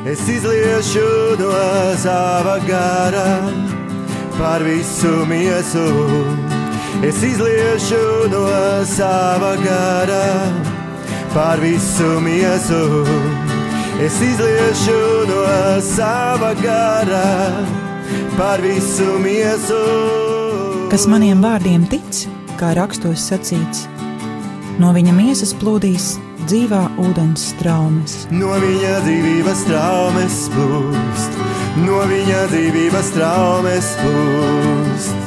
Es izliešu no sava gara par visu miesu. Es izliešu no sava gara par visu miesu. Es izliešu no sava gara par visu miesu. Kas maniem vārdiem tic, kā rakstos sacīts, no viņa miesas plūdīs dzīvā ūdens straumes. No viņa dzīvības straumes plūst, no viņa dzīvības straumes plūst.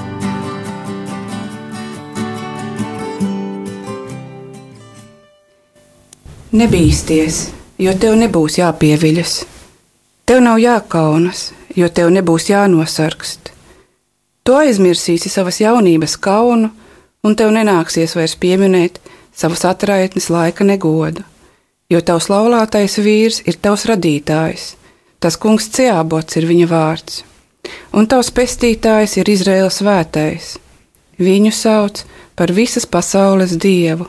Nebīsties, jo tev nebūs jāpieviļas. Tev nav jākaunas, jo tev nebūs jānosargst. Tu aizmirsīsi savas jaunības kaunu, un tev nenāksies vairs pieminēt savas atraitnes laika negodu, jo tavs laulātais vīrs ir tavs radītājs, tas kungs Ceābots ir viņa vārds, un tavs pestītājs ir Izraēla svētais. Viņu sauc par visas pasaules dievu,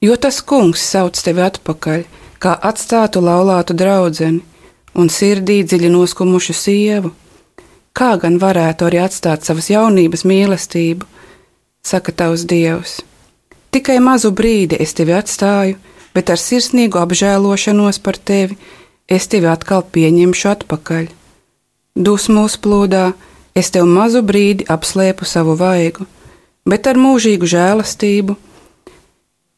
jo tas kungs sauc tevi atpakaļ, kā atstātu laulātu draudzeni un sirdī dziļi noskumušu sievu. Kā gan varētu arī atstāt savas jaunības mīlestību, saka tavs Dievs. Tikai mazu brīdi es tevi atstāju, bet ar sirsnīgu apžēlošanos par tevi es tevi atkal pieņemšu atpakaļ. Dusmu uzplūdā es tev mazu brīdi apslēpu savu vaigu, bet ar mūžīgu žēlastību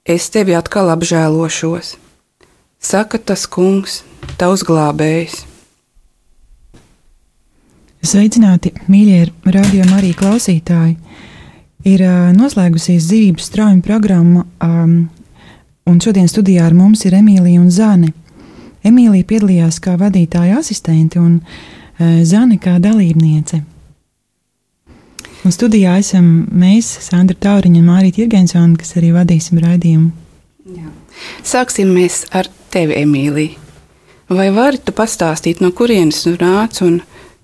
es tevi atkal apžēlošos, saka tas kungs, tavs glābējs. Sveicināti, mīļie Radio Marija klausītāji! Ir noslēgusies dzīvības straujuma programma, un šodien studijā ar mums ir Emīlija un Zane. Emīlija piedalījās kā vadītāja asistente un Zane kā dalībniece. Un studijā esam mēs, Sandra Tauriņa un Mārīta Jirgensona, kas arī vadīsim raidījumu. Jā. Sāksim mēs ar tevi, Emīlija. Vai vari tu pastāstīt, no kurienes tu nāc un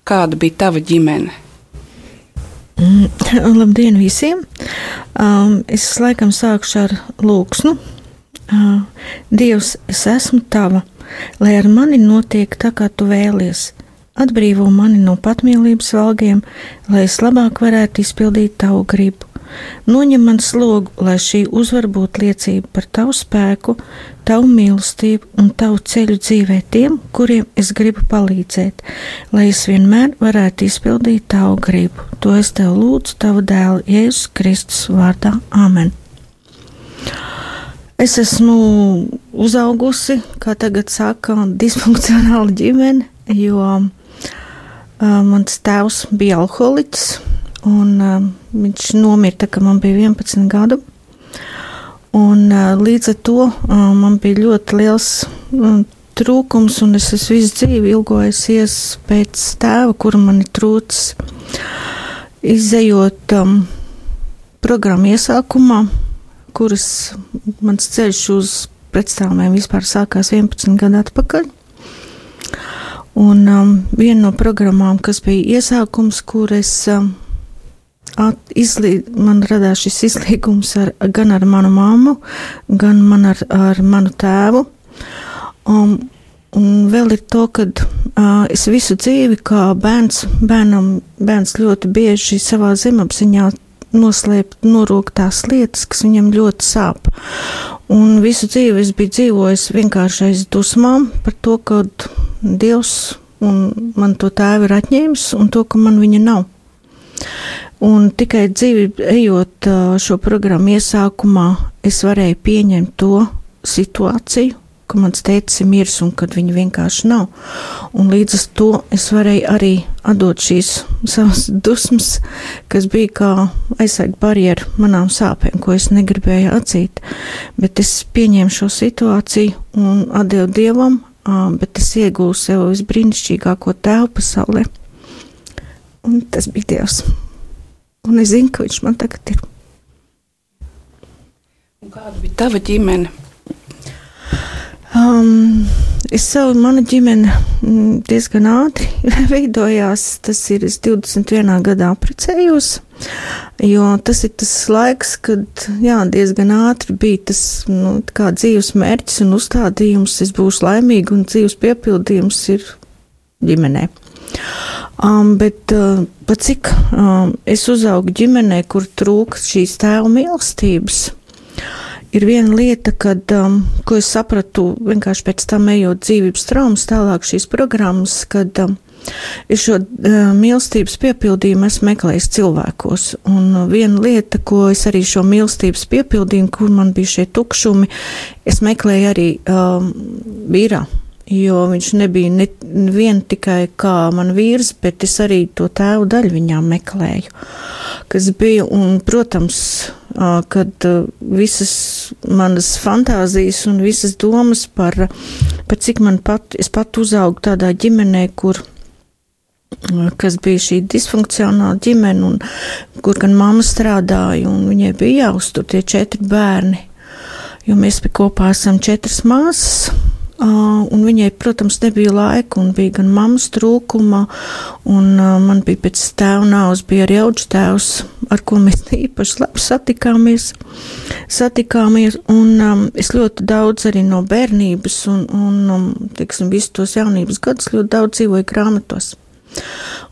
kāda bija tava ģimene? Labdien visiem! Es laikam sākšu ar lūgsnu. Dievs, es esmu tava, lai ar mani notiek tā, kā tu vēlies. Atbrīvo mani no patmīlības valgiem, lai es labāk varētu izpildīt tavu gribu. Noņem man slogu, lai šī uzvar būtu liecība par tavu spēku, tavu mīlestību un tavu ceļu dzīvē tiem, kuriem es gribu palīdzēt, lai es vienmēr varētu izpildīt tavu gribu. To es tev lūdzu tavu dēlu Jēzus Kristus vārdā. Āmen. Es esmu uzaugusi, kā tagad saka, disfunkcionāla ģimene, jo mans tēvs bija alkoholiķis. Un viņš nomira, kad man bija 11 gadu. Un līdz ar to man bija ļoti liels trūkums, un es visu dzīvi ilgojusies pēc tēva, kura man ir trūcis. Izejot programmu iesākumā, kuras mans ceļš uz pretstāvumiem vispār sākās 11 gadu atpakaļ. Un viena no programmām, kas bija iesākums, kur es man radās šis izlīgums gan ar manu mammu, gan ar manu tēvu. Un vēl ir to, ka es visu dzīvi kā bērns ļoti bieži savā zemapziņā noslēpt, norūkt tās lietas, kas viņam ļoti sāp. Un visu dzīvi es biju dzīvojis vienkārši aiz dusmām par to, ka Dievs man to tēvu ir atņēmis un to, ka man viņa nav. Un tikai dzīvi ejot šo programmu iesākumā, es varēju pieņemt to situāciju, ka mans tētis ir miris un kad viņa vienkārši nav. Un līdz ar to es varēju arī atdot šīs savas dusmas, kas bija kā aizsarga barjera manām sāpēm, ko es negribēju atzīt. Bet es pieņēmu šo situāciju un atdevu Dievam, bet es iegūstu sev visbrīnišķīgāko tēvu pasaulē. Un tas bija Dievs. Un es zinu, ka viņš man tagad ir. Un kāda bija tava ģimene? Mana ģimene diezgan ātri veidojās. Tas ir, es 21. gadā apprecējos, jo tas ir tas laiks, kad, diezgan ātri bija tas, kā dzīves mērķis un uzstādījums, es būšu laimīga un dzīves piepildījums ir ģimenē. Bet pat cik es uzaugu ģimenē, kur trūka šīs tēva mīlestības, ir viena lieta, ko es sapratu vienkārši pēc tam ejot dzīvības traumas tālāk šīs programmas, kad es šo mīlestības piepildījumu esmu meklējis cilvēkos. Un viena lieta, ko es arī šo mīlestības piepildījumu, kur man bija šie tukšumi, es meklēju arī vīrā. Jo viņš nebija nevien tikai kā man vīrs, bet es arī to tēvu daļu viņām meklēju, kas bija, un, protams, kad visas manas fantāzijas un visas domas par cik es pat uzaugu tādā ģimenē, kas bija šī disfunkcionāla ģimene, un kur gan mamma strādāja, un viņai bija jāuztur tie 4 bērni, jo mēs kopā esam 4 māsas. Un viņai, protams, nebija laika, un bija gan mammas trūkuma, un man bija pēc tēva nāves, bija arī auģu tēvs, ar ko mēs īpaši labi satikāmies, un es ļoti daudz arī no bērnības un teiksim, visu tos jaunības gadus ļoti daudz dzīvoju grāmatos.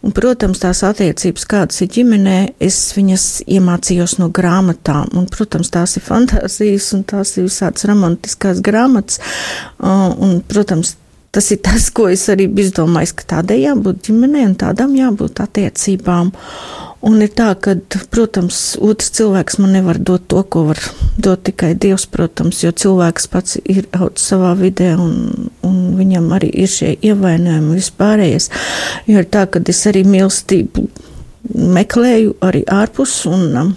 Un, protams, tās attiecības, kādas ir ģimenē, es viņas iemācījos no grāmatām, un, protams, tās ir fantāzijas, un tās ir visādas romantiskās grāmatas, un, protams, tas ir tas, ko es arī biju domājis, ka tādai jābūt ģimenei, un tādām jābūt attiecībām. Un ir tā, ka, protams, otrs cilvēks man nevar dot to, ko var dot tikai Dievs, protams, jo cilvēks pats ir audzis savā vidē, un viņam arī ir šie ievainojumi vispārējais. Jo ir tā, ka es arī mīlestību meklēju arī ārpus, un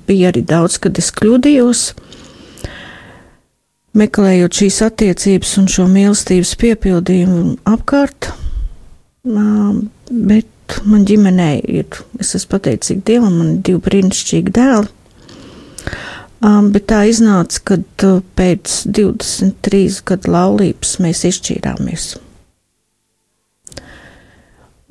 bija arī daudz, kad es kļūdījos, meklējot šīs attiecības un šo mīlestības piepildījumu apkārt, bet man ģimenē ir, es esmu pateicīga Dievam, man ir 2 brīnišķīgi dēli, bet tā iznāca, kad pēc 23 gadu laulības mēs izšķīrāmies.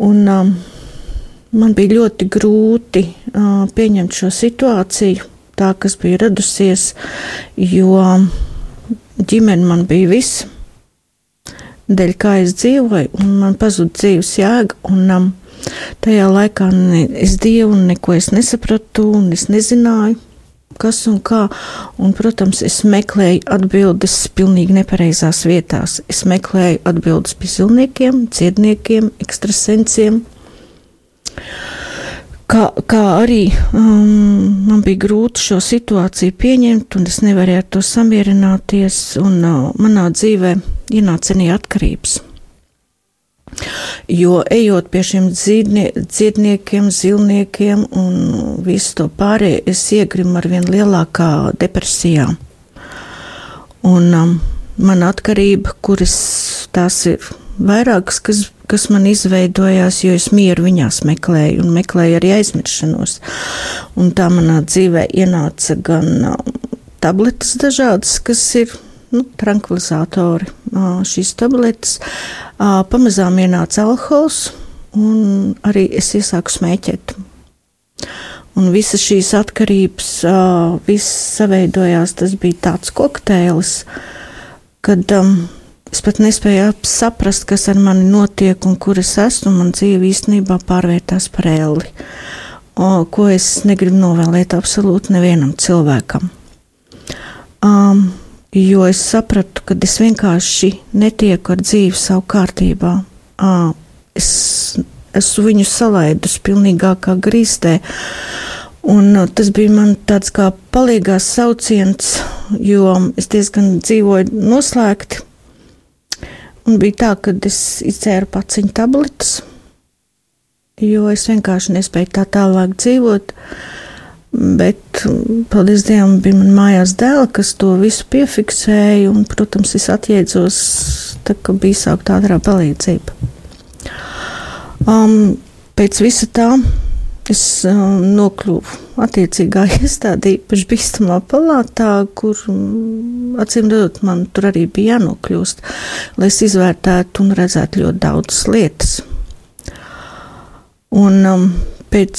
Un man bija ļoti grūti pieņemt šo situāciju, tā, kas bija radusies, jo ģimene man bija viss, dēļ kā es dzīvoju, un man pazuda dzīves jēga, un tajā laikā es Dievu neko es nesapratu, un es nezināju, kas un kā, un, protams, es meklēju atbildes pilnīgi nepareizās vietās. Es meklēju atbildes pie zilniekiem, ciedniekiem, ekstrasensiem, kā arī man bija grūti šo situāciju pieņemt, un es nevarēju ar to samierināties, un manā dzīvē ienāca arī atkarības. Jo ejot pie šiem dziedniekiem, zilniekiem un visu to pārējo, es iegrimu ar vien lielākā depresijā. Un man atkarība, kuras tās ir vairākas, kas man izveidojās, jo es mieru viņās meklēju un meklēju arī aizmiršanos. Un tā manā dzīvē ienāca gan tabletes dažādas, kas ir trankvilizatori, šīs tabletes, pamazām ienāca alkohols, un arī es iesāku smēķēt. Un visas šīs atkarības, viss saveidojās, tas bija tāds kokteilis, kad es pat nespēju saprast, kas ar mani notiek un kur es esmu, man dzīve īstenībā pārvērtās par elli, ko es negribu novēlēt absolūti nevienam cilvēkam. Jo es sapratu, ka es vienkārši netieku ar dzīvi savu kārtībā. Es esmu viņu salaidus pilnīgākā grīstē, un tas bija man tāds kā palīgās sauciens, jo es diezgan dzīvoju noslēgti, un bija tā, ka es izdzēru paciņu tabletes, jo es vienkārši nespēju tā tālāk dzīvot. Bet, paldies Dievam, bija man mājās dēli, kas to visu piefiksēja, un, protams, es atjēdzos, tā, ka bija sākta ātrā palīdzība. Pēc visa tā es nokļuvu attiecīgā iestādē, īpaši bīstamā palātā, kur, acīm redzot, man tur arī bija jānokļūst, lai es izvērtētu un redzētu ļoti daudzas lietas. Un pēc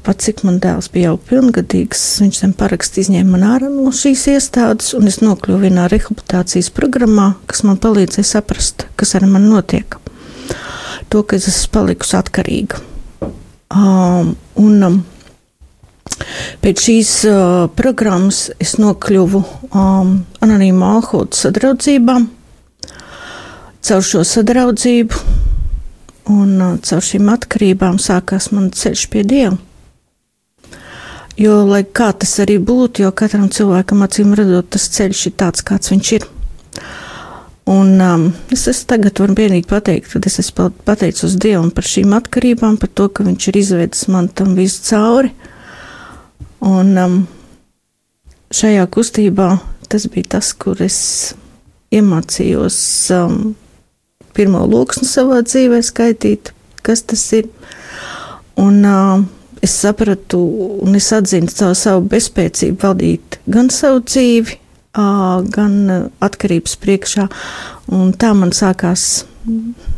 pat cik man dēls bija jau pilngadīgs, viņš tam parakstu izņēma man ārā no šīs iestādes, un es nokļuvu vienā rehabilitācijas programmā, kas man palīdzēja saprast, kas ar mani notiek. To, ka es esmu palikusi atkarīga. Pēc šīs programmas es nokļuvu Anonīma alkohola sadraudzībā. Caur šo sadraudzību un caur šīm atkarībām sākās man ceļš pie Dieva. Jo, lai kā tas arī būtu, jo katram cilvēkam acīm redzot, tas ceļš ir tāds, kāds viņš ir. Un es tagad varu vienīgi pateikt, ka es esmu pateicos Dievam par šīm atkarībām, par to, ka viņš ir izvedis man tam visu cauri. Un šajā kustībā tas bija tas, kur es iemācījos pirmo loksni savā dzīvē skaitīt, kas tas ir. Un es sapratu un es atzinu savu bezspēcību valdīt gan savu dzīvi, gan atkarības priekšā. Un tā man sākās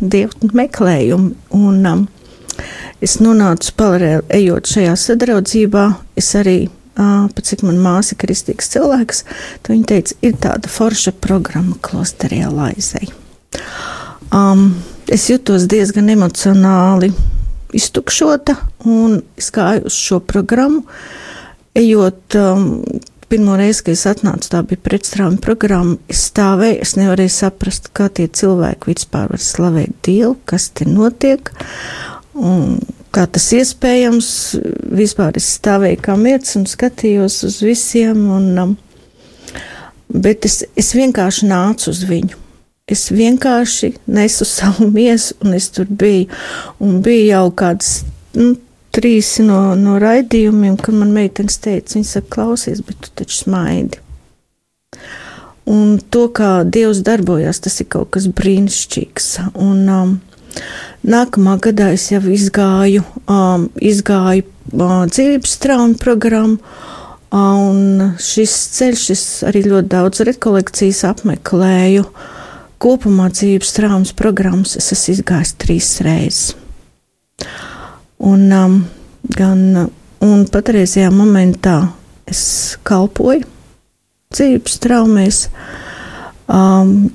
Dieva meklējumi. Un es nonācu paralēli ejot šajā sadraudzībā. Es arī, pat cik man māsa ir kristīgs cilvēks, tad viņa teica, ir tāda forša programma klosterī Laizei. Es jutos diezgan emocionāli iztukšota, un es gāju uz šo programmu, ejot pirmo reizi, kad es atnācu, tā bija pretstrāvuma programma, es stāvēju, es nevarēju saprast, kā tie cilvēki vispār var slavēt Dievu, kas te notiek, un kā tas iespējams, vispār es stāvēju kā mietis un skatījos uz visiem, bet es vienkārši nācu uz viņu. Es vienkārši nesu savu miesu, un es tur biju. Un bija jau kāds 3 no raidījumiem, kad man meitenes teica, viņa saka, klausies, bet tu taču smaidi. Un to, kā Dievs darbojas, tas ir kaut kas brīnišķīgs. Un nākamā gadā es jau izgāju dzīvības traumu programmu, un šis ceļš, es arī ļoti daudz rekolekcijas apmeklēju. Kopumā dzīves traumas programmas es esmu izgājis 3 reizes. Un patreizajā momentā es kalpoju dzīves traumēs,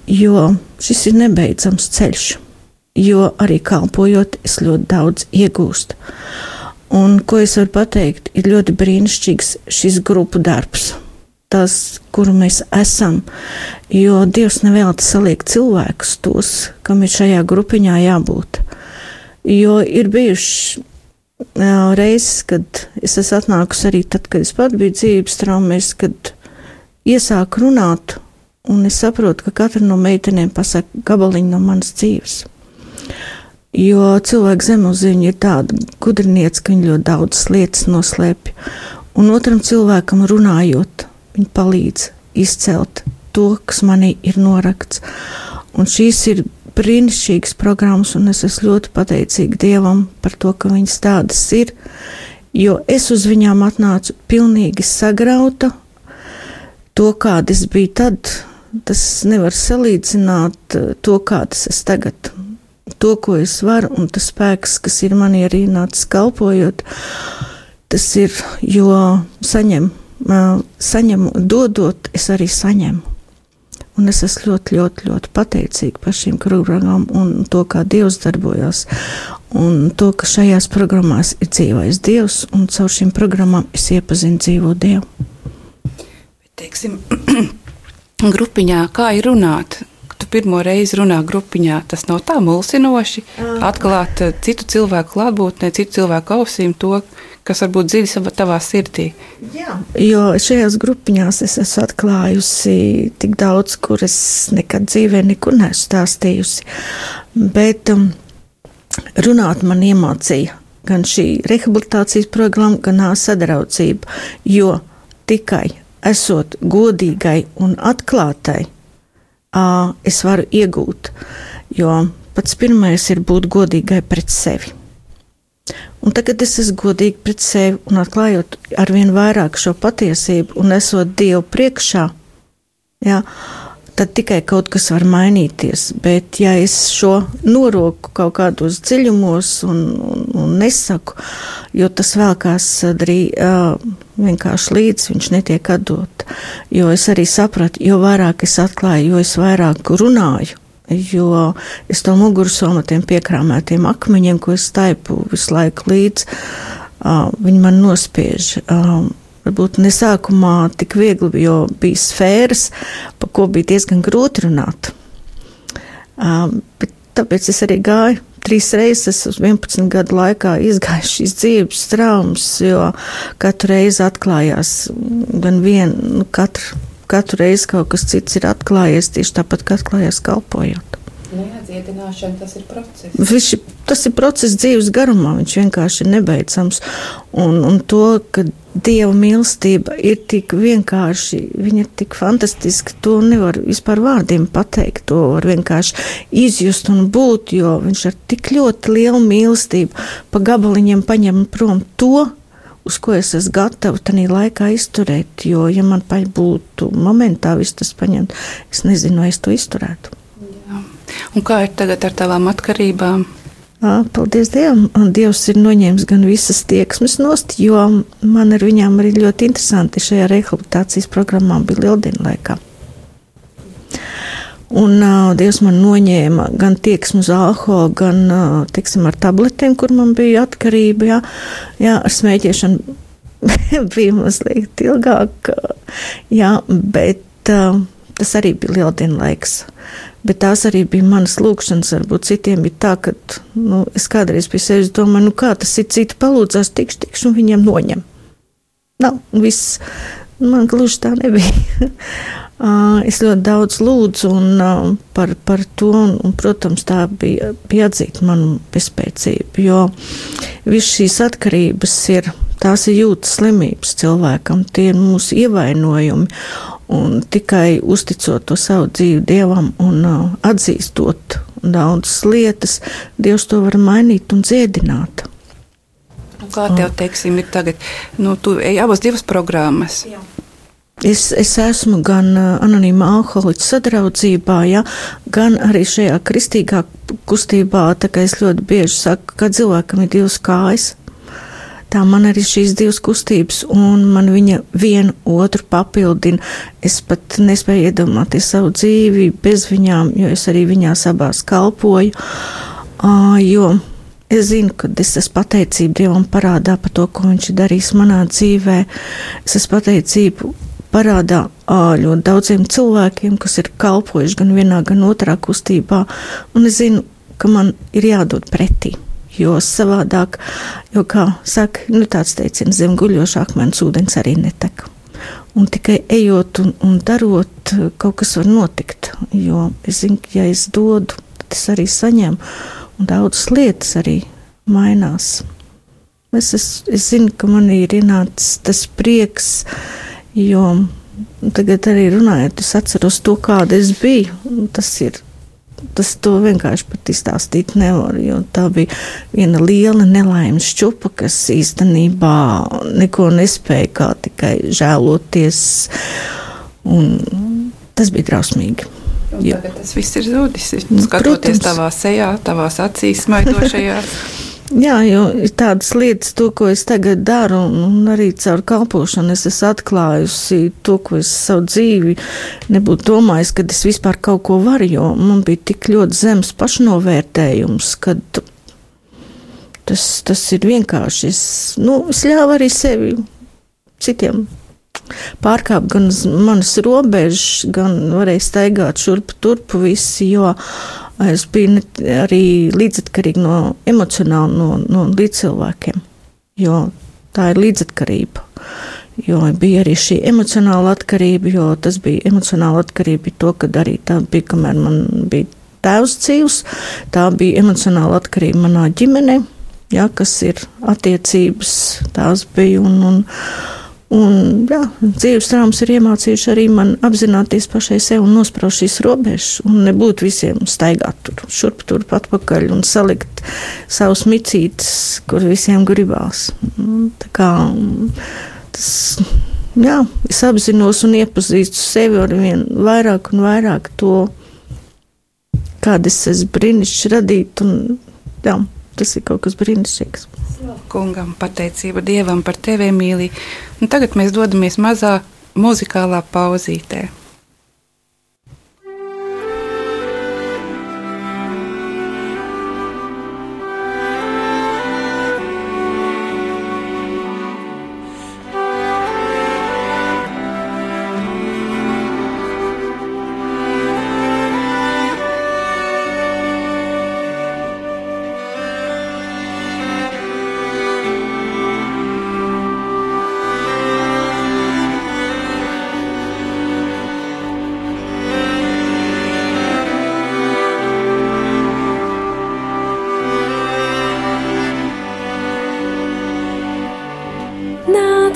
jo šis ir nebeidzams ceļš, jo arī kalpojot es ļoti daudz iegūstu. Un ko es varu pateikt, ir ļoti brīnišķīgs šis grupu darbs. Tas, kuru mēs esam, jo Dievs nevēlti saliek cilvēkus tos, kam ir šajā grupiņā jābūt. Jo ir bijuši reizes, kad es esmu atnākusi arī tad, kad es pat biju dzīves traumēs, kad iesāku runāt, un es saprotu, ka katra no meitenēm pasaka gabaliņu no manas dzīves. Jo cilvēku zemapziņa ir tāda gudriniece, ka viņa ļoti daudzas lietas noslēpj. Un otram cilvēkam runājot, viņi palīdz izcelt to, kas manī ir norakts. Un šīs ir brīnišķīgas programmas, un es esmu ļoti pateicīga Dievam par to, ka viņas tādas ir, jo es uz viņām atnācu pilnīgi sagrauta. To, kāda es biju tad, tas nevar salīdzināt to, kādas es tagad. To, ko es varu, un tas spēks, kas ir manī arī nācis kalpojot, tas ir, jo saņemu, dodot, es arī saņemu. Un es esmu ļoti, ļoti, ļoti pateicīga par šīm programmām un to, kā Dievs darbojas. Un to, ka šajās programmās ir dzīvais Dievs, un caur šīm programmām es iepazinu dzīvo Dievu. Teiksim, grupiņā, kā ir runāt? Tu pirmo reizi runā grupiņā, tas nav tā mulsinoši, atklāt citu cilvēku klātbūtnē, citu cilvēku ausīm to, kas varbūt dziļi tavā sirdī. Jā, jo šajās grupiņās es esmu atklājusi tik daudz, kur es nekad dzīvē nekur neesmu stāstījusi. Bet runāt man iemācīja gan šī rehabilitācijas programma, gan sadraudzība, jo tikai esot godīgai un atklātai, es varu iegūt, jo pats pirmais ir būt godīgai pret sevi. Un tagad es esmu godīgi pret sevi un atklājot arvien vairāk šo patiesību un esot Dievu priekšā, jā, tad tikai kaut kas var mainīties. Bet ja es šo noroku kaut kādos dziļumos un nesaku, jo tas vēlkās vienkārši līdz viņš netiek atdot, jo es arī sapratu, jo vairāk es atklāju, jo es vairāk runāju, jo es to mugursomu tiem piekrāmētiem akmeņiem, ko es taipu visu laiku līdz, viņi man nospiež. Varbūt ne sākumā tik viegli, jo bija sfēras, pa ko bija diezgan grūti runāt. Bet tāpēc es arī gāju 3 reizes uz 11 gadu laikā izgāju šīs dzīves traumas, jo katru reizi atklājās gan katru reizi kaut kas cits ir atklājies, tieši tāpat, kā atklājās kalpojot. Neatdziedināšana, tas ir process. Tas ir process dzīves garumā, viņš vienkārši ir nebeidzams. Un to, ka Dieva mīlestība ir tik vienkārši, viņa ir tik fantastiska, to nevar vispār vārdiem pateikt, to var vienkārši izjust un būt, jo viņš ar tik ļoti lielu mīlestību pa gabaliņiem paņem prom to, uz ko es esmu gatava tanī laikā izturēt, jo, ja man būtu momentā viss tas paņemt, es nezinu, vai es to izturētu. Jā. Un kā ir tagad ar tavām atkarībām? Paldies Dievam, un Dievs ir noņēmis gan visas tieksmes nost, jo man ar viņām arī ļoti interesanti šajā rehabilitācijas programmā bija lieldienu laikā. Un Dievs man noņēma gan tieksmu uz alkoholu, gan, teiksim, ar tabletēm, kur man bija atkarība, jā, ar smēķēšanu bija mazliet ilgāk, jā, bet tas arī bija lieldienu laiks. Bet tās arī bija manas lūkšanas, varbūt citiem bija tā, ka, es kādreiz pie sevis domāju, kā tas ir, citi palūdzās, tikšu, un viņiem noņem. Nav, viss, man gluži tā nebija. Es ļoti daudz lūdzu un par to, un, protams, tā bija atzīt manu bezspēcību, jo viss šīs atkarības tās ir jūtas slimības cilvēkam, tie ir mūsu ievainojumi, un tikai uzticot to savu dzīvi Dievam un atzīstot daudzas lietas, Dievs to var mainīt un dziedināt. Kā tev, teiksim, ir tagad, tu ej abas 2 programmas. Jā. Es esmu gan anonīma alkoholiķa sadraudzībā, ja, gan arī šajā kristīgā kustībā, tā kā es ļoti bieži saku, ka cilvēkam ir 2 kājas. Tā man arī šīs 2 kustības, un man viņa vienu otru papildina. Es pat nespēju iedomāties savu dzīvi bez viņām, jo es arī viņās abās kalpoju, jo es zinu, ka es esmu pateicība Dievam parādā par to, ko viņš ir darījis manā dzīvē. Es esmu pateicību parādā ļoti daudziem cilvēkiem, kas ir kalpojuši gan vienā, gan otrā kustībā, un es zinu, ka man ir jādod pretī. Jo savādāk, jo, kā saka, tāds teiciens, zem guļošā akmens ūdens arī netek. Un tikai ejot un darot, kaut kas var notikt. Jo es zinu, ka ja es dodu, tad es arī saņemu, un daudzas lietas arī mainās. Es zinu, ka man ir ienācis tas prieks, jo tagad arī runājot, es atceros to, kāda es biju. Tas to vienkārši pat izstāstīt nevar, jo tā bija viena liela nelaimes šķupa, kas īstenībā neko nespēja, kā tikai žēloties, un tas bija drausmīgi. Un tagad tas viss ir zudis, skatoties tavā sejā, tavās acīs smaidošajās. Jā, jo ir tādas lietas, to, ko es tagad daru, un arī caur kalpošanu es esmu atklājusi to, ko es savu dzīvi nebūtu domājis, kad es vispār kaut ko varu, jo man bija tik ļoti zems pašnovērtējums, kad tas ir vienkārši. Es ļāvu arī sevi citiem pārkāpt gan manas robežas, gan varēju staigāt šurpu turpu visi, jo es biju arī līdzatkarīga emocionāli no līdzcilvēkiem, jo tā ir līdzatkarība. Jo bija arī šī emocionāla atkarība, jo tas bija emocionāla atkarība to, kad arī tā bija, kamēr man bija tēvs dzīvs, tā bija emocionāla atkarība manā ģimenē, ja, kas ir attiecības, tās bija Un, jā, dzīves traumas ir iemācījuši arī man apzināties pašai sev un nospraust šīs robežas un nebūt visiem staigāt tur, šurp, turp, atpakaļ un salikt savus micītes, kur visiem gribās. Tā kā tas, jā, es apzinos un iepazīstu sevi ar vien vairāk un vairāk to, kāda es esmu brīnišķīgi radīt, un jā, tas ir kaut kas brīnišķīgs. Kungam pateicība Dievam par tevi, Emīlija. Un tagad mēs dodamies mazā muzikālā pauzītē.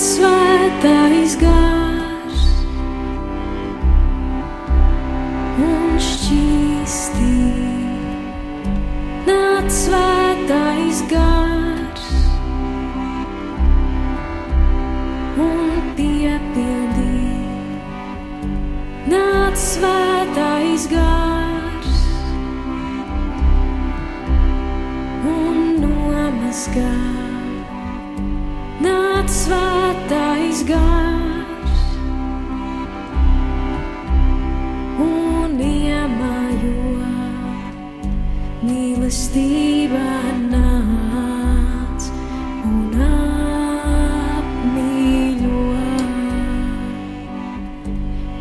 Svētais gars un šķīstī, nāc svētais gars un piepildī, nāc svētais gars un nomazgā. Nāc svētais gars un iemājo, mīlestība nāc un apmīļo.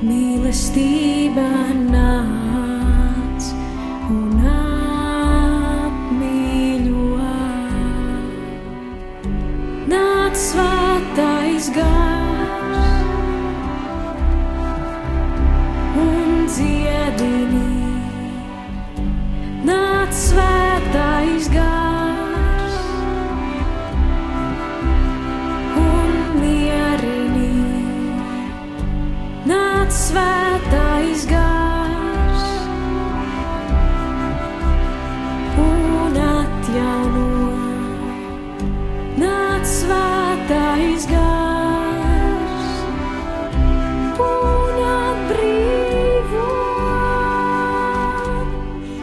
Mīlestība nāc un apmīļo. Nāc svētais gars un dziedini, nāc svētais gars un mierini, nāc svētais gars un atjauno. Nāc svētais gars un atbrīvo.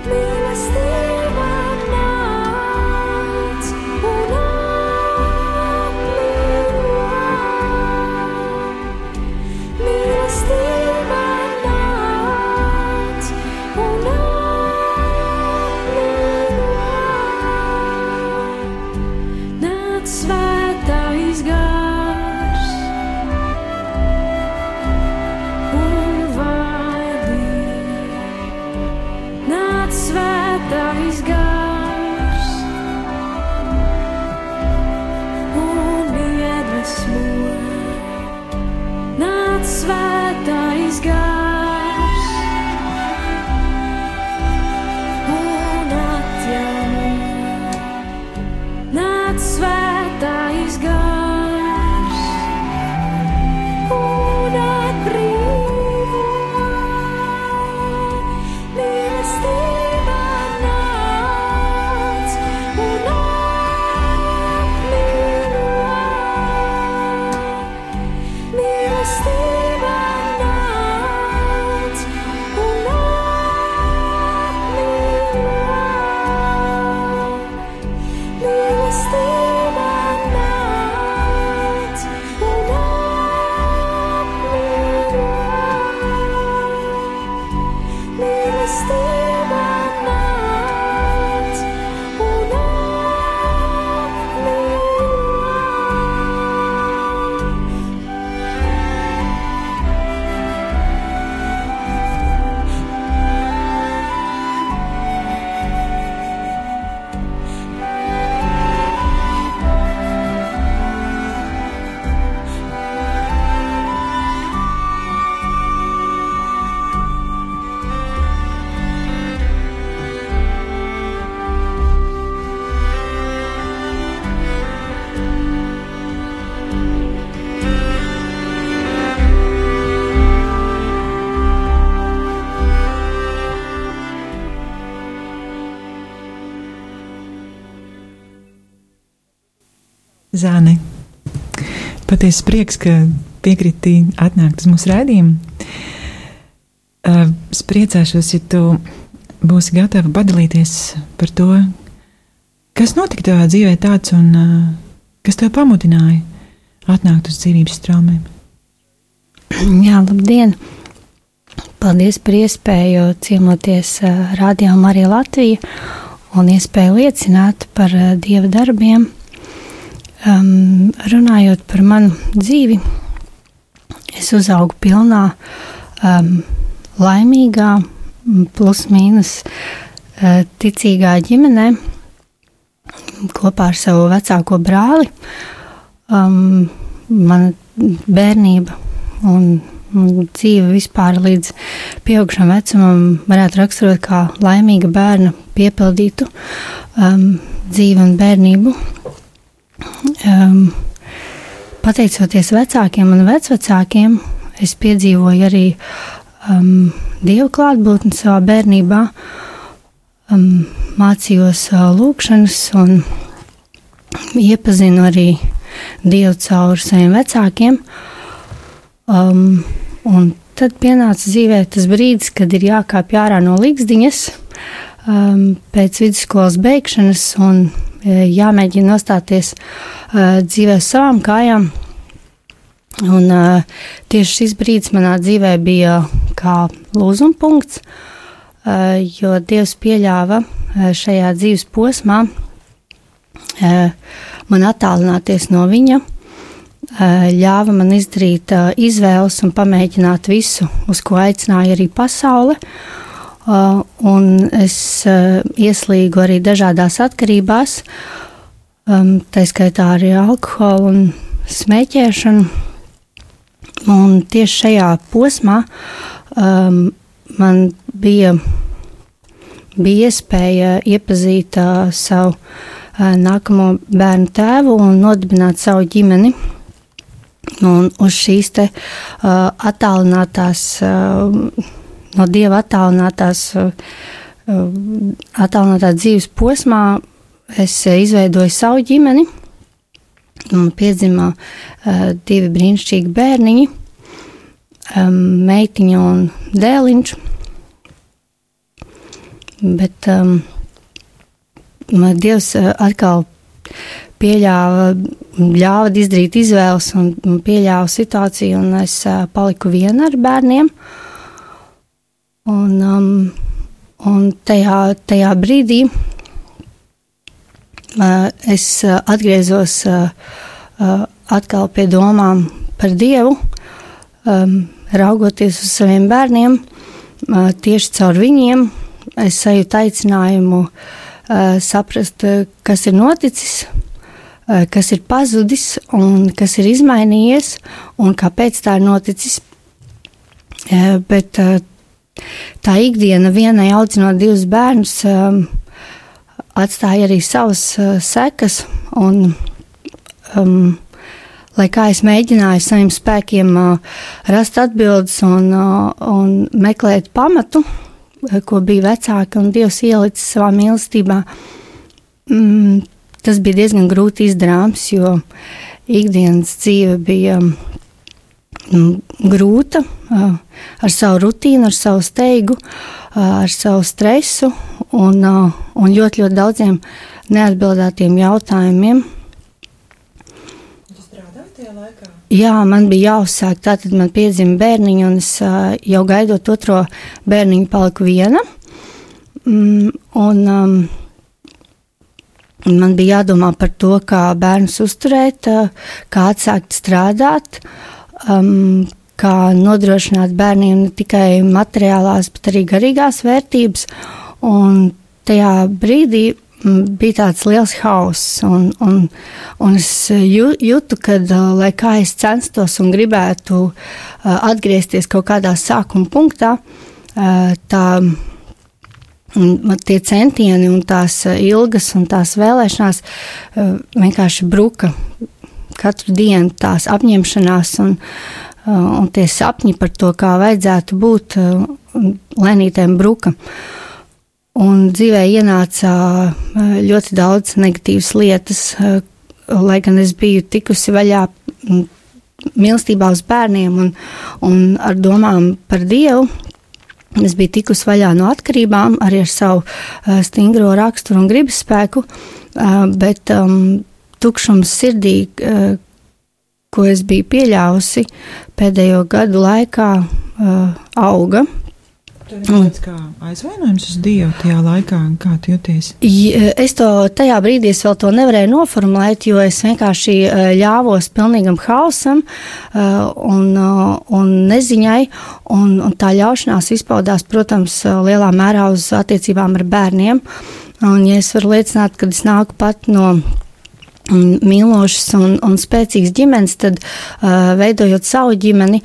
Mīlestība nāc un apmīļo. Mīlestība nāc un apmīļo. Nāc svētais gars un vadi. Nāc svētais gars un iedvesmo. Nāc svētais gars un atjauno. Nāc svētais gars un atbrīvo. Mīlestība nāc Zāne, patiesi prieks, ka piekriti atnākt uz mūsu raidījumu. Es priecāšos, ja tu būsi gatava padalīties par to, kas notika tavā dzīvē tāds un kas tev pamudināja atnākt uz dzīvības straumēm. Jā, labdien! Paldies par iespēju ciemoties Radio Marija Latvija un iespēju liecināt par Dieva darbiem. Runājot par manu dzīvi, es uzaugu pilnā, laimīgā, plus mīnus ticīgā ģimenē kopā ar savu vecāko brāli. Mana bērnība un dzīve vispār līdz pieaugšam vecumam varētu raksturot kā laimīga bērna piepildītu dzīvi un bērnību. Pateicoties vecākiem un vecvecākiem, es piedzīvoju arī Dieva klātbūtni savā bērnībā, mācījos lūkšanas un iepazinu arī Dievu caur saviem vecākiem. Un tad pienāca dzīvē tas brīdis, kad ir jākāpj ārā no ligzdiņas pēc vidusskolas beigšanas un jāmēģina nostāties dzīvē savām kājām. Un tieši šis brīdis manā dzīvē bija kā lūzuma punkts, jo Dievs pieļāva šajā dzīves posmā man attālināties no viņa, ļāva man izdarīt izvēles un pamēģināt visu, uz ko aicināja arī pasaule. Un es ieslīgu arī dažādās atkarībās, tā skaitā arī alkoholu un smēķēšanu. Un tieši šajā posmā man bija iespēja iepazīt savu nākamo bērnu tēvu un nodibināt savu ģimeni. Un uz šīs te attālinātās, no Dieva attālinātā dzīves posmā es izveidoju savu ģimeni. Un piedzima 2 brīnišķīgi bērniņi, meitiņa un dēliņš. Bet Dievs atkal ļāva izdarīt izvēles un pieļāva situāciju, un es paliku viena ar bērniem. Un tajā brīdī es atgriezos atkal pie domām par Dievu, raugoties uz saviem bērniem, tieši caur viņiem. Es sajūtu aicinājumu saprast, kas ir noticis, kas ir pazudis un kas ir izmainījies un kāpēc tā ir noticis. Bet tā ikdiena vienai audzinot 2 bērnus atstāja arī savas sekas, un lai kā es mēģināju saviem spēkiem rast atbildes un meklēt pamatu, ko bija vecāki un Dievs ielicis savā mīlestībā, tas bija diezgan grūti izdarāms, jo ikdienas dzīve bija grūta, ar savu rutīnu, ar savu steigu, ar savu stresu un ļoti, ļoti daudziem neatbildētiem jautājumiem. Tu strādāji tajā laikā? Jā, man bija jāuzsāk, tātad man piedzima bērniņi, un es jau gaidot otro bērniņu paliku viena. Man bija jādomā par to, kā bērnus uzturēt, kā atsākt strādāt, kā nodrošināt bērniem ne tikai materiālās, bet arī garīgās vērtības. Un tajā brīdī bija tāds liels hauss, un es jūtu, ka, lai kā es censtos un gribētu atgriezties kaut kādā sākuma punktā, tie centieni un tās ilgas un tās vēlēšanās vienkārši bruka. Katru dienu tās apņemšanās un tie sapņi par to, kā vajadzētu būt, lēnītēm bruka. Un dzīvē ienāca ļoti daudz negatīvas lietas, lai gan es biju tikusi vaļā mīlestībā uz bērniem un ar domām par Dievu, es biju tikusi vaļā no atkarībām, arī ar savu stingro raksturu un gribas spēku, bet tukšums sirdī, ko es biju pieļāvusi pēdējo gadu laikā, auga. Tev ir tāds kā aizvainojums uz Dievu tajā laikā, kā tu jūties? Es to tajā brīdī es vēl to nevarēju noformulēt, jo es vienkārši ļāvos pilnīgam hausam un neziņai, un tā ļaušanās izpaudās, protams, lielā mērā uz attiecībām ar bērniem. Un, ja es varu liecināt, kad es nāku pat no mīlošas un spēcīgas ģimenes, tad veidojot savu ģimeni,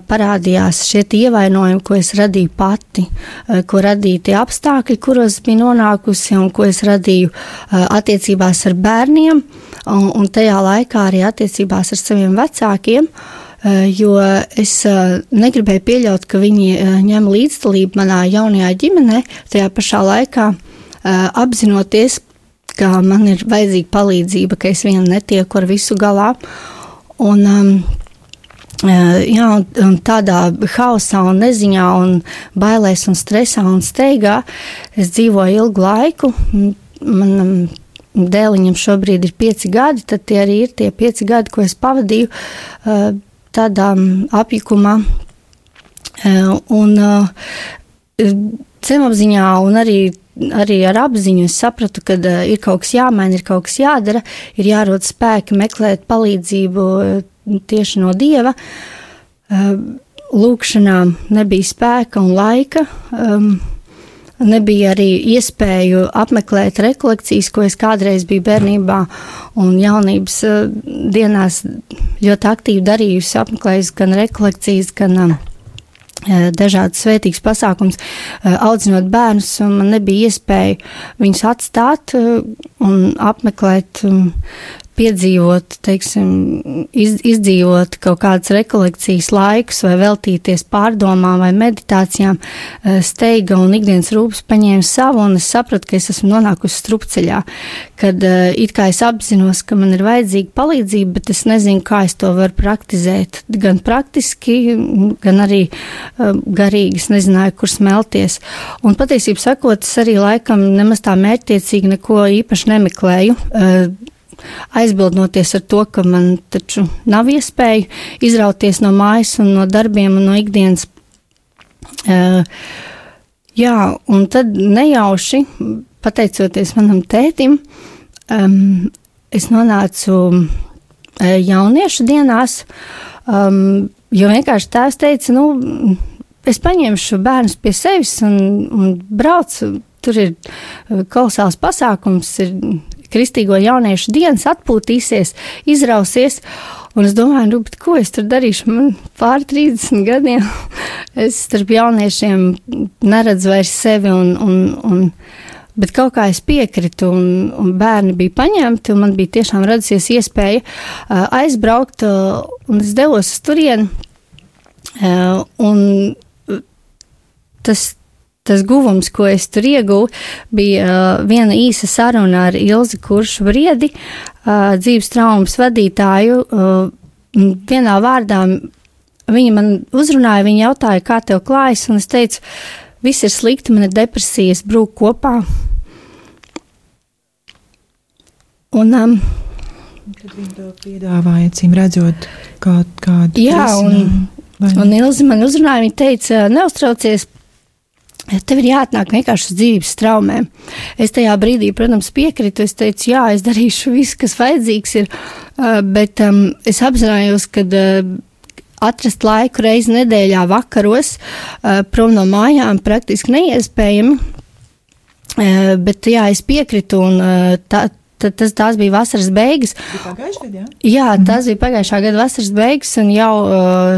parādījās šie ievainojumi, ko es radīju pati, ko radīja tie apstākļi, kuros biju nonākusi un ko es radīju attiecībās ar bērniem un tajā laikā arī attiecībās ar saviem vecākiem, jo es negribēju pieļaut, ka viņi ņem līdzdalību manā jaunajā ģimenē, tajā pašā laikā apzinoties, ka man ir vajadzīga palīdzība, ka es viena netieku ar visu galā. Un tādā hausā un neziņā un bailēs un stresā un steigā es dzīvoju ilgu laiku. Manam dēliņam šobrīd ir 5 gadi, tad tie arī ir tie 5 gadi, ko es pavadīju tādā apjukumā. Un zemapziņā un arī ar apziņu es sapratu, ka ir kaut kas jāmaina, ir kaut kas jādara, ir jārod spēki meklēt palīdzību tieši no Dieva. Lūkšanām nebija spēka un laika, nebija arī iespēju apmeklēt rekolekcijas, ko es kādreiz biju bērnībā un jaunības dienās ļoti aktīvi darījusi, apmeklējusi gan rekolekcijas, gan dažādas svētīgas pasākums, audzinot bērnus, un man nebija iespēja viņus atstāt un apmeklēt, piedzīvot, teiksim, izdzīvot kaut kādas rekolekcijas laikus vai veltīties pārdomām vai meditācijām. Steiga un ikdienas rūpes paņēma savu, un es sapratu, ka es esmu nonākusi strupceļā, kad it kā es apzinos, ka man ir vajadzīga palīdzība, bet es nezinu, kā es to varu praktizēt. Gan praktiski, gan arī garīgi, es nezināju, kur smelties. Un patiesībā sakot, es arī laikam nemaz tā mērķtiecīgi neko īpaši nemeklēju, aizbildnoties ar to, ka man taču nav iespēja izrauties no mājas un no darbiem un no ikdienas. Un tad nejauši, pateicoties manam tētim, es nonācu jauniešu dienās, jo vienkārši tēvs teica, es paņemšu bērnus pie sevis un braucu, tur ir kolosāls pasākums, ir Kristīgo jauniešu dienas, atpūtīsies, izrausies, un es domāju, bet ko es tur darīšu, man pār 30 gadiem, es starp jauniešiem neredzu vairs sevi, bet kaut kā es piekritu, un bērni bija paņemti, un man bija tiešām radusies iespēja aizbraukt, un es devos uz turieni, un tas guvums, ko es tur ieguvu, bija viena īsa saruna ar Ilzi Kuršu Briedi, dzīves traumas vadītāju. Vienā vārdā viņa man uzrunāja, viņa jautāja, kā tev klājas, un es teicu, viss ir slikti, man ir depresija, es brūku kopā. Un kad viņi to piedāvāja, cīm redzot, kādu jā, un Ilzi man uzrunāja, viņa teica, neuztraucies, tev ir jāatnāk vienkārši uz dzīves traumēm. Es tajā brīdī, protams, piekritu, es teicu, jā, es darīšu visu, kas vajadzīgs ir, bet es apzinājos, ka atrast laiku reizi nedēļā vakaros prom no mājām praktiski neiespējami, bet jā, es piekritu un tās bija vasaras beigas. Pagājušajā gadā, jā? Jā, tās bija pagājušā gada vasaras beigas, un jau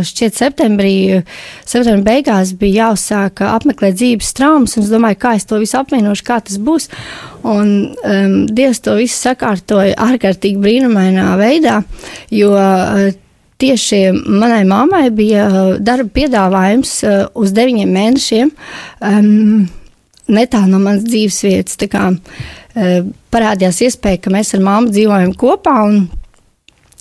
šķiet septembra beigās bija jāuzsāk apmeklēt dzīves traumas, un es domāju, kā es to visu apvienošu, kā tas būs. Un Dievs to visu sakārtoja ārkārtīgi brīnumainā veidā, jo tieši manai mammai bija darba piedāvājums uz 9 mēnešiem netālu no manas dzīves vietas. Tā kā parādījās iespēja, ka mēs ar mammu dzīvojam kopā un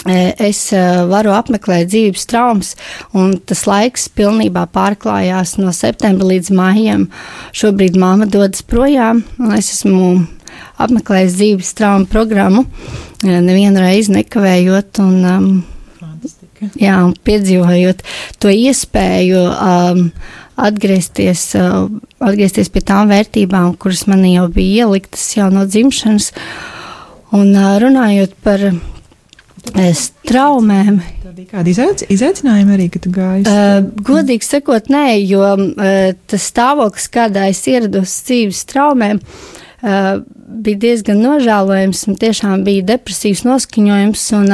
es varu apmeklēt dzīves traumas, un tas laiks pilnībā pārklājās no septembra līdz maijam. Šobrīd mamma dodas projām, un es esmu apmeklējis dzīves traumu programmu, nevienu reizi nekavējot, un piedzīvojot to iespēju atgriezties pie tām vērtībām, kuras man jau bija ieliktas jau no dzimšanas, un runājot par traumēm. Tā bija kāda izaicinājuma arī, ka tu gāji? Godīgi sakot, nē, jo tas stāvoklis, kādā es ierados dzīves traumēm, bija diezgan nožēlojams un tiešām bija depresīvs noskaņojums, un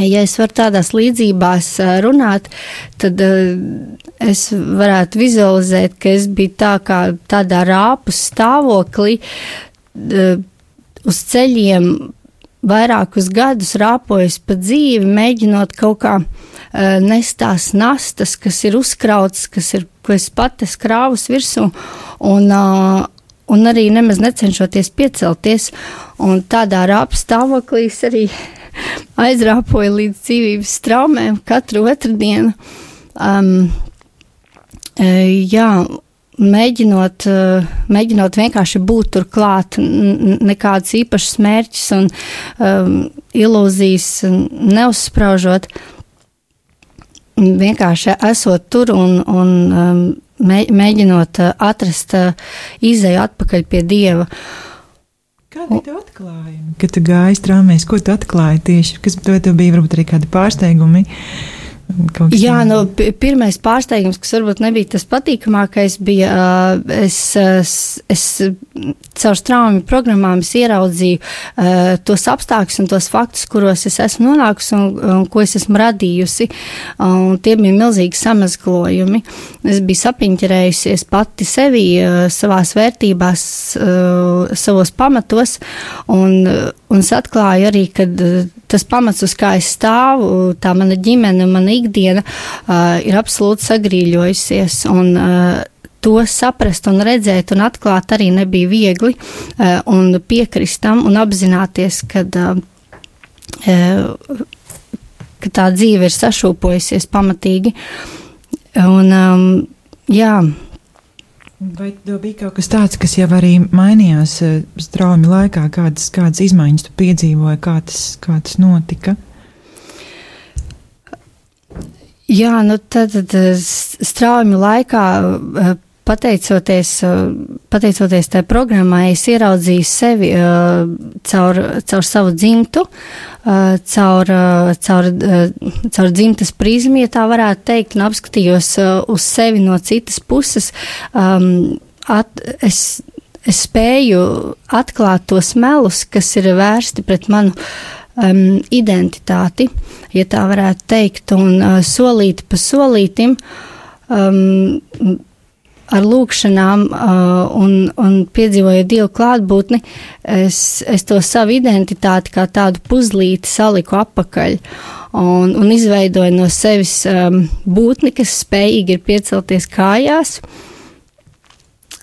ja es varu tādās līdzībās runāt, tad es varētu vizualizēt, ka es biju tādā rāpu stāvoklī uz ceļiem vairākus gadus rāpojas pa dzīvi, mēģinot kaut kā nest tās nastas, kas ir uzkrautas, ko es pati krāvus virsū, un arī nemaz necenšoties piecelties, un tādā rāpu stāvoklī es arī aizrāpoju līdz dzīvības traumēm katru otrdienu. Mēģinot vienkārši būt tur klāt, nekādus īpašus mērķus un ilūzijas neuzspraužot, vienkārši esot tur un mēģinot atrast izeju atpakaļ pie Dieva. Kādi tev atklājumi, kad tu gāji traumēs? Ko tu atklāji tieši? Kas tev bija varbūt arī kādi pārsteigumi? Jā, pirmais pārsteigums, kas varbūt nebija tas patīkamākais, bija, es caur traumu programmām ieraudzīju tos apstākļus un tos faktus, kuros es esmu nonākusi un ko es esmu radījusi, un tie bija milzīgi samazglojumi. Es biju sapiņķerējusies pati sevi, savās vērtībās, savos pamatos, un es atklāju arī, kad tas pamats, uz kā es stāvu, tā mana ģimene, mana ikdiena ir absolūti sagrīļojusies, un to saprast un redzēt un atklāt arī nebija viegli, un piekrist tam un apzināties, ka tā dzīve ir sašūpojusies pamatīgi. Un, jā. Vai tev bija kaut kas tāds, kas jau arī mainījās traumu laikā, kādas izmaiņas tu piedzīvoji, kā tas notika? Jā, tad traumu laikā, pateicoties tai programmai, es ieraudzīju sevi caur savu dzimtu, caur dzimtas prizmu, ja tā varētu teikt, un apskatījos uz sevi no citas puses. Es spēju atklāt tos melus, kas ir vērsti pret manu identitāti, ja tā varētu teikt, un solīti pa solītim ar lūkšanām un piedzīvojot Dievu klātbūtni, es to savu identitāti kā tādu puzlīti saliku apakaļ un izveidoju no sevis būtni, kas spējīgi ir piecelties kājās,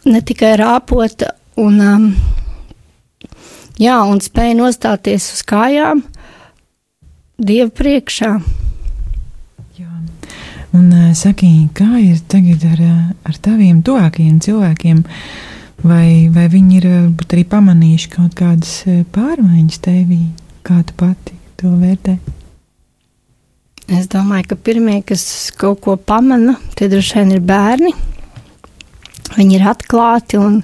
ne tikai rāpot un spēja nostāties uz kājām Dieva priekšā. Un saki, kā ir tagad ar taviem tuvākajiem cilvēkiem? Vai viņi ir arī pamanījuši kaut kādas pārmaiņas tevī? Kā tu pati to vērtē? Es domāju, ka pirmie, kas kaut ko pamana, tie droši vien ir bērni. Viņi ir atklāti un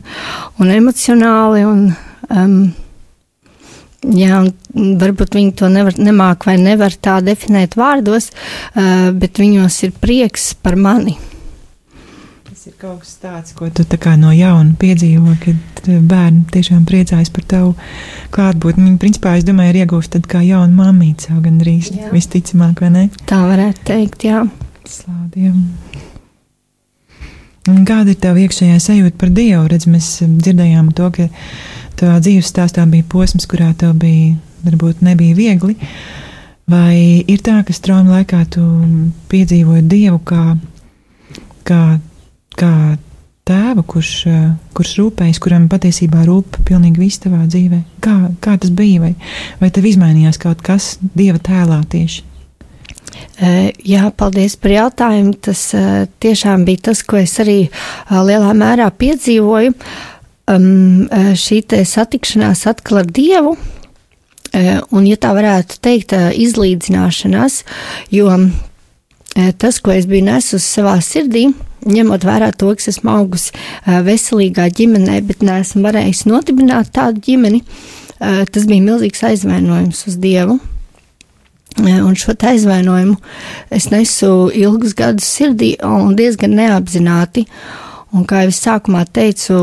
emocionāli un varbūt viņi to nemāk vai nevar tā definēt vārdos, bet viņos ir prieks par mani. Tas ir kaut kas tāds, ko tu tā kā no jauna piedzīvo, kad bērni tiešām priecājas par tavu klātbūtni. Viņi, principā, es domāju, ir iegūst tad kā jauna mammīca, jau gandrīz visticamāk, vai ne? Tā varētu teikt, jā. Slādiem. Un kāda ir tava iekšējā sajūta par Dievu? Redz, mēs dzirdējām to, ka tavā dzīves stāstā bija posms, kurā tev bija, varbūt nebija viegli. Vai ir tā, ka traumu laikā tu piedzīvoji Dievu kā tēvu, kurš rūpējas, kuram patiesībā rūp pilnīgi viss tavā dzīvē? Kā tas bija? Vai tev izmainījās kaut kas Dieva tēlā tieši? Jā, paldies par jautājumu. Tas tiešām bija tas, ko es arī lielā mērā piedzīvoju. Šī te satikšanās atkal ar Dievu, un, ja tā varētu teikt, izlīdzināšanās, jo tas, ko es biju nesusi savā sirdī, ņemot vērā to, ka esmu augusi veselīgā ģimenē, bet neesmu varējusi nodibināt tādu ģimeni, tas bija milzīgs aizvainojums uz Dievu. Un šo aizvainojumu es nesu ilgus gadus sirdī un diezgan neapzināti. Un, kā jau es sākumā teicu,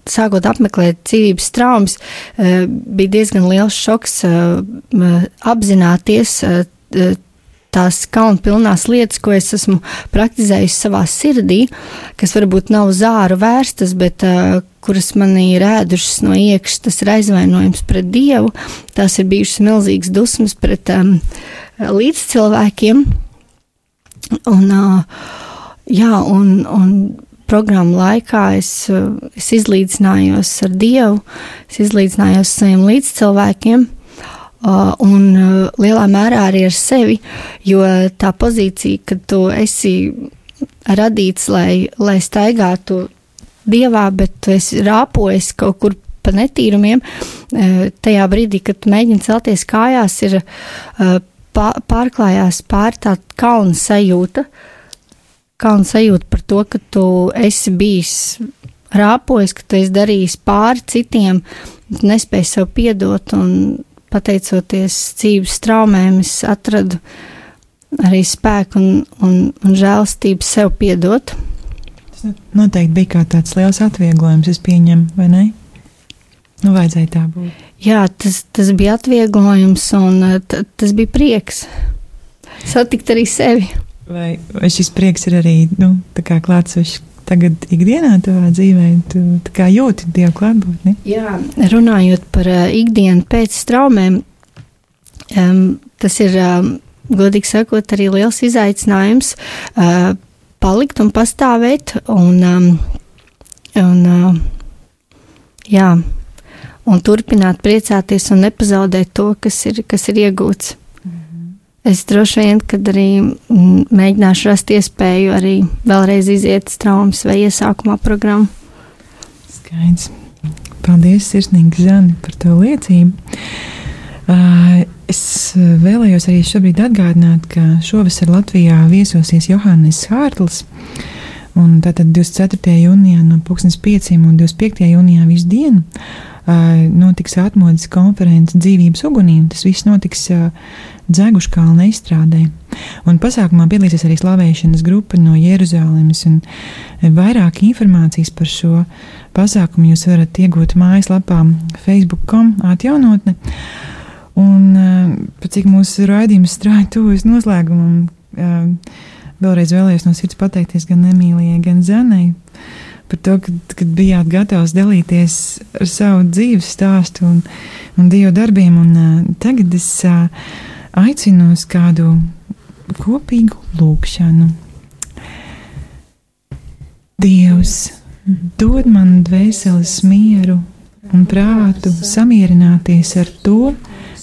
sākot apmeklēt dzīvības traumas, bija diezgan liels šoks apzināties tās kaunpilnās lietas, ko es esmu praktizējusi savā sirdī, kas varbūt nav uz āru vērstas, bet kuras manī ir ēdušas no iekšas, tas ir aizvainojums pret Dievu, tās ir bijušas milzīgas dusmas pret līdzcilvēkiem. Un programmu laikā es izlīdzinājos ar Dievu, es izlīdzinājos saviem līdzcilvēkiem, un lielā mērā arī ar sevi, jo tā pozīcija, kad tu esi radīts, lai staigātu Dievā, bet tu esi rāpojis kaut kur pa netīrumiem, tajā brīdī, kad tu mēģini celties kājās, ir pārklājās pār tā kauna sajūta par to, ka tu esi bijis rāpojis, ka tu esi darījis pāri citiem, nespēji sev piedot, un pateicoties dzīves traumēm, es atradu arī spēku un žēlastību sev piedot. Tas noteikti bija kā tāds liels atvieglojums, es pieņemu, vai ne? Nu, vajadzēja tā būt. Jā, tas bija atvieglojums, un tas bija prieks satikt arī sevi. Vai šis prieks ir arī, tā kā klātsošs tagad ikdienā tavā dzīvē, tu tā kā jūti Dievu klātbūtni? Jā, runājot par ikdienu pēc traumēm, tas ir, godīgi sakot, arī liels izaicinājums palikt un pastāvēt un turpināt priecāties un nepazaudēt to, kas ir iegūts. Es droši vien, kad arī mēģināšu rast iespēju arī vēlreiz iziet traumas vai iesākumā programmu. Skaidrs. Paldies, sirsnīgi, Zani, par to liecību. Es vēlējos arī šobrīd atgādināt, ka šovasar Latvijā viesosies Johannes Hārtls, un tātad 24. jūnijā no 5 un 25. jūnijā visu dienu notiks atmodas konferences dzīvības ugunīm. Tas viss notiks Dzeguškalna izstrādē. Un pasākumā piedalīsies arī slavēšanas grupa no Jeruzalemes, un vairāk informācijas par šo pasākumu jūs varat iegūt mājaslapā facebook.com atjaunotne. Un cik mūsu raidījums strāja tuvojas noslēgumam, vēlreiz vēlējos no sirds pateikties gan Emīlijai, gan Zanai par to, kad bijāt gatavs dalīties ar savu dzīves stāstu un Dieva darbiem. Un tagad es aicinu uz kādu kopīgu lūgšanu. Dievs, dod man dvēseles mieru un prātu samierināties ar to,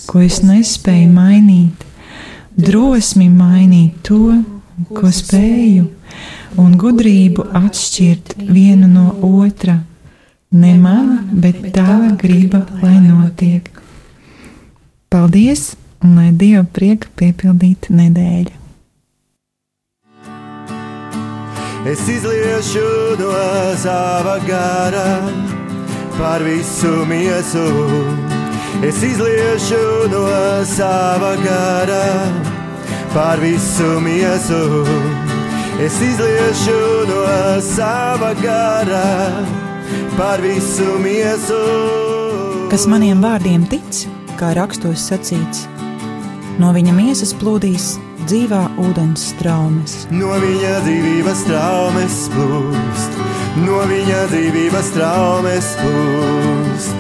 ko es nespēju mainīt, drosmi mainīt to, ko spēju, un gudrību atšķirt vienu no otra. Ne mana, bet tava griba, lai notiek. Paldies, un lai Dieva prieka piepildītu nedēļu. Es izliešu no sava gara par visu miesu. Es izliešu no sava gara par visu miesu. Es izliešu no sava gara par visu miesu. Kas maniem vārdiem tic, kā rakstos sacīts, no viņa miesas plūdīs dzīvā ūdens straumes. No viņa dzīvības traumes plūst, no viņa dzīvības traumes plūst.